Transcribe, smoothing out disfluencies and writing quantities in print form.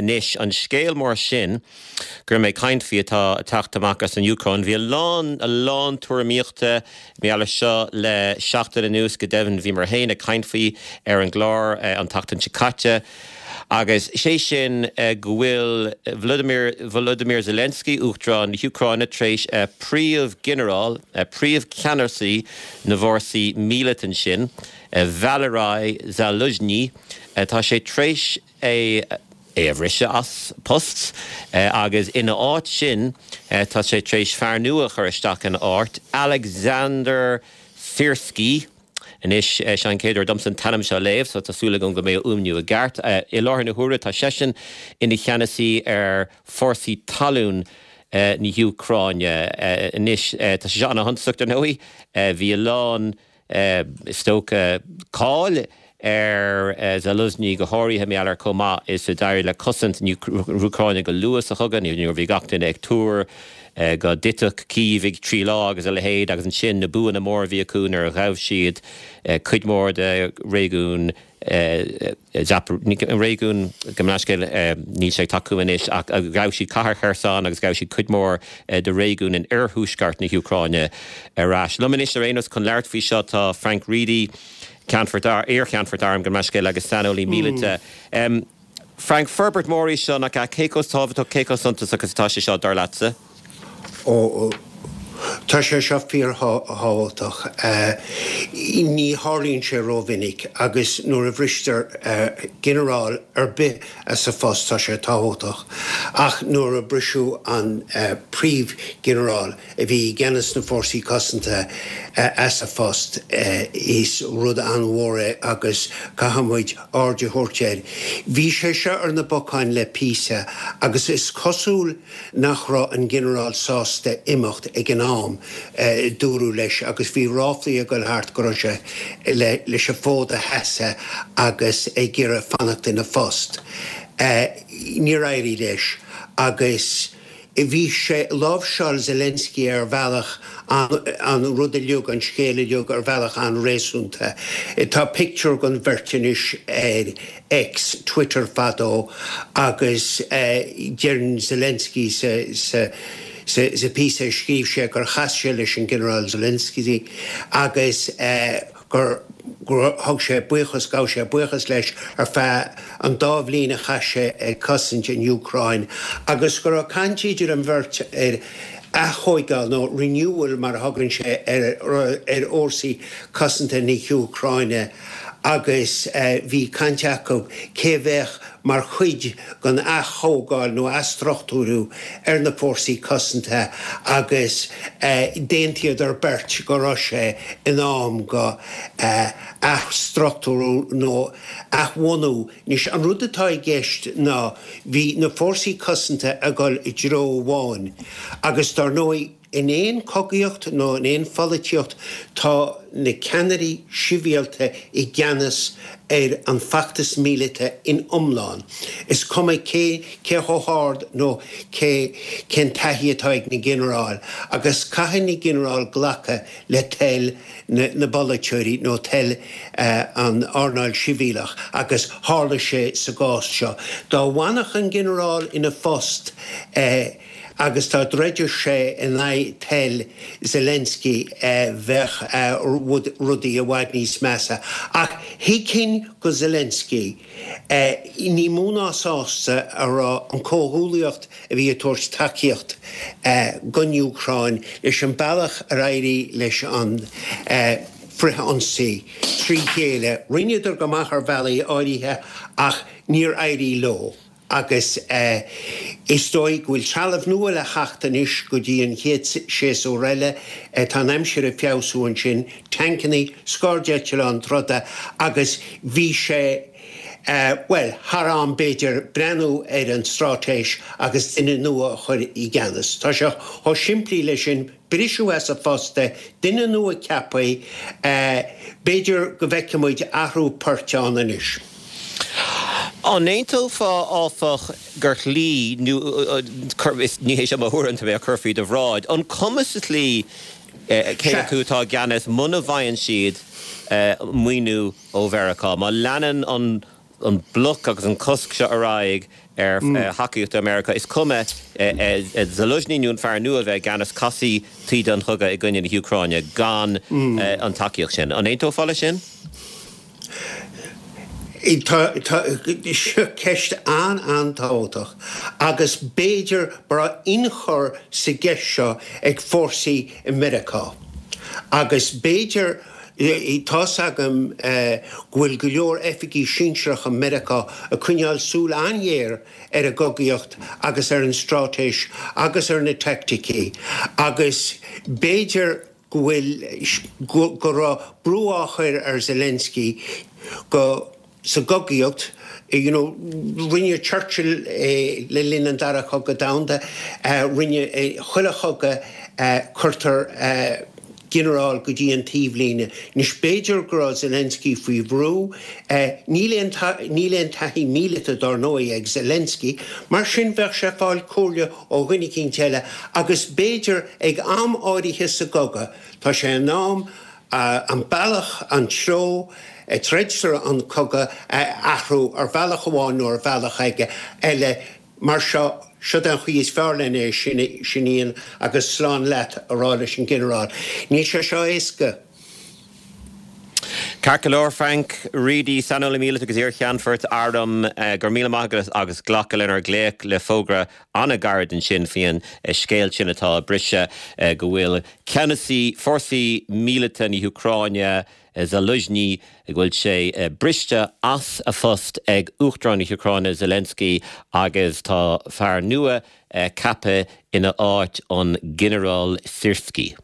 Anois, an scéal mór sin go raibh mé ag caint faoi atá ag teacht amach as an Úcráin, bhí a lán, a lán tuairimíochta mar gheall air seo le seachtain anuas, go deimhin bhíomar féin ag caint faoi ar an gclár an tseachtain seo caite. Agus sé sin go bhfuil Vladimir Volodymyr Zelensky, Uachtarán na hÚcráine, tar éis príomh-ghinearál, príomh-cheannasaí na bhfórsaí míleata ansin, Valery Zaluzhny, tá sé tar éis é é a bhriseadh as post agus ina áit sin tá sé tar éis fear nua a chur isteach ina áit, Alexander Syrskyi. Anois, seo an chéad uair domsa an t-ainm seo a léamh, so tá súil agam go mbeidh a fhuaimniú i gceart. I láthair na huaire, tá seisean ina cheannasaí ar fórsaí talún na hÚcráine. Anois, tá sé seo ana-shuntasach, dar ndóigh. Bhí a lán, is dócha, cáil ar Zaluzhny, go háirithe mar gheall ar chomh maith is a d'éirigh le cosaint na hÚcráine go luath sa chogadh, nuair a bhí gach duine ag tuar go dtitfeadh Cív i dtrí lá agus a leithéid, agus ansin na buanna móra a bhí acu nuair a ghabh siad cuid mhór de réigiún réigiún, gabh mo leithscéal, níl sé ag teacht chugam anois, ach ghabh siad cathair Kherson agus ghabh siad cuid mhór de réigiún in oirthuaisceart na hÚcráine ar ais. Liom anois ar aon nós chun labhairt faoi seo tá Frank Reidy, Ceannfort, iar-Cheannfort Airm, gabh mo leithscéal, agus saineolaí míleata. Frank, forbairt mhór í seo, nach ea? Cé chomh tábhachtach, cé chomh suntasach is atá sé seo, dar leatsa? Ó, tá sé seo fíorthábhachtach. Ní tharlaíonn sé rómhinic agus nuair a bhristear ginearál ar bith as a phost tá sé tábhachtach. Ach nuair a briseadh an príomhghinearál, a bhí i gceannas na Fórsaí Cosanta as a phost. Is rud an-mhór é agus caithfidh muid aird a thabhairt air. Bhí sé seo ar na bacáin le píosa agus is cosúil nach raibh an Ginearál sásta imeacht ag an am, dúradh leis, agus bhí ráflaí ag dul thart go raibh sé leis an bhfód a sheasamh agus ag iarraidh fanacht ina phost. Níor éirigh leis agus. Bhí sé, láimhseáil Zelensky ar bhealach an rud uilig, an scéal uilig ar bhealach an-réasúnta. Tá pictiúr den bheirt anois ar X, Twitter fadó, agus deireann Zelensky sa sa píosa a scríobh sé gur chas sé leis an Ginearál Zelensky agus gur thug sé buíochas, ghabh sé buíochas leis ar feadh an dá bhliain a chaith sé ag cosaint an Úcráin agus go raibh caint idir an bheirt ar aththóigeáil nó renewal mar a thugann sé ar ar fhórsaí cosanta na hÚcráine agus bhí caint acu cé a bheadh mar chuid den aththógáil nó athstruchtúrú ar na fórsaí cosanta agus d'aontaíodar beirt go raibh sé in am go athstruchtúrú nó athbhunú. Anois, an rud atá i gceist ná bhí na fórsaí cosanta ag dul i dtreo amháin agus dar ndóigh, In aon chogaíocht nó in aon pholaitíocht tá na ceannairí sibhialta i gceannas ar an bhfeachtas míleata in iomlán. Is cuma cé cé chomh hard nó cé cén taithí atá ag na ginearáil agus caithfidh na ginearáil glacadh le toil na na bpolaiteoirí nó toil an earnáil sibhialach agus tharla sé sa gcás seo. Dá bhfanfadh an ginearál ina phost, Agus dá dtroideadh sé in aghaidh toil Zelensky bheadh rudaí i bhfad níos measa. Ach thuigfinn go Zelensky, ní mó ná sásta a raibh an comhghuallaíocht a bhí ag tabhairt tacaíocht don Úcráin leis an bealach ar éirigh leis an frith-ionsaí trí chéile. Rinneadar go maith ar bhealaí áirithe ach níor éirigh leo. Agus is dóigh go bhfuil trealamh nua le theacht anois go dtí an chéad séasúr eile. Tá an aimsir ag feabhsú ansin, tancannaí, scairdeitleáin troda agus bhí sé, bhuel, thar am b'fhéidir breathnú ar an straitéis agus duine nua a chur i gceannas. Tá sé chomh simplí leis sin. Briseadh as a phost é, duine nua ceaptha, b'fhéidir go bhfeicfidh muid athrú poirt ann anois. An aontófá, áfach, gur shlí, nó ní hé seo mo thuairim, tá mé á cur faoi do bhráid, an cuma sa tslí cé acu atá i gceannas muna bhfaigheann siad maoiniú ó Mheiriceá, má leanann an an bloc agus an cosc seo ar aghaidh. ar thacaíocht ó Mheiriceá. Is cuma Zaluzhny nó an fear nua a bheith i gceannas, casfaidh taoide an chogaidh i gcoinne na hÚcráine gan an tacaíocht sin. An aontófá leis sin? Tá, seo ceist an-an-tábhachtach agus b'fhéidir go raibh ionchur sa gceist seo ag fórsaí i Meiriceá agus b'fhéidir, tá's agam go bhfuil go leor oifigí sinsearacha Meiriceá ag coinneáil súil an-ghéar ar an gcogaíocht agus ar an straitéis agus ar na teaicticí agus b'fhéidir go bhfuil, go raibh brú á chur ar Zelensky go, sa gcogaíocht, you know, rinne Churchill é le linn an Dara Cogadh Domhanda, rinne, chuile chogadh cuirtear ginearál go dtí an taobhlíne. Anois b'fhéidir go raibh Zelensky faoi bhrú, níl aon, níl aon taithí míleata dár ndóigh ag Zelensky, mar sin bheadh sé ag fáil comhairle ó dhuine eicínt eile agus b'fhéidir ag am áirithe sa gcogadh, tá sé in am an bealach, an treo a dtroidtear an cogadh a athrú ar bhealach amháin nó ar bhealach eile. Mar seo, siod é an chaoi is fearr len é sin a dhéanamh agus slán leat a rá leis an ghinearál. Níl sé seo éasca. Ceart go leor, Frank Reidy, saineolaí míleata agus iar-cheannfort airm, go raibh míle maith agat as glacadh lenár nglaoch le fógra an-ghairid ansin faoin scéal sin atá ag briseadh go bhfuil ceannasaí fórsaí míleata na hÚcráine, Zaluzhny, go bhfuil sé briste as a phost ag Uachtarán na hÚcráine Zelensky agus tá fear nua ceaptha ina áit, an Ginearál Syrskyi.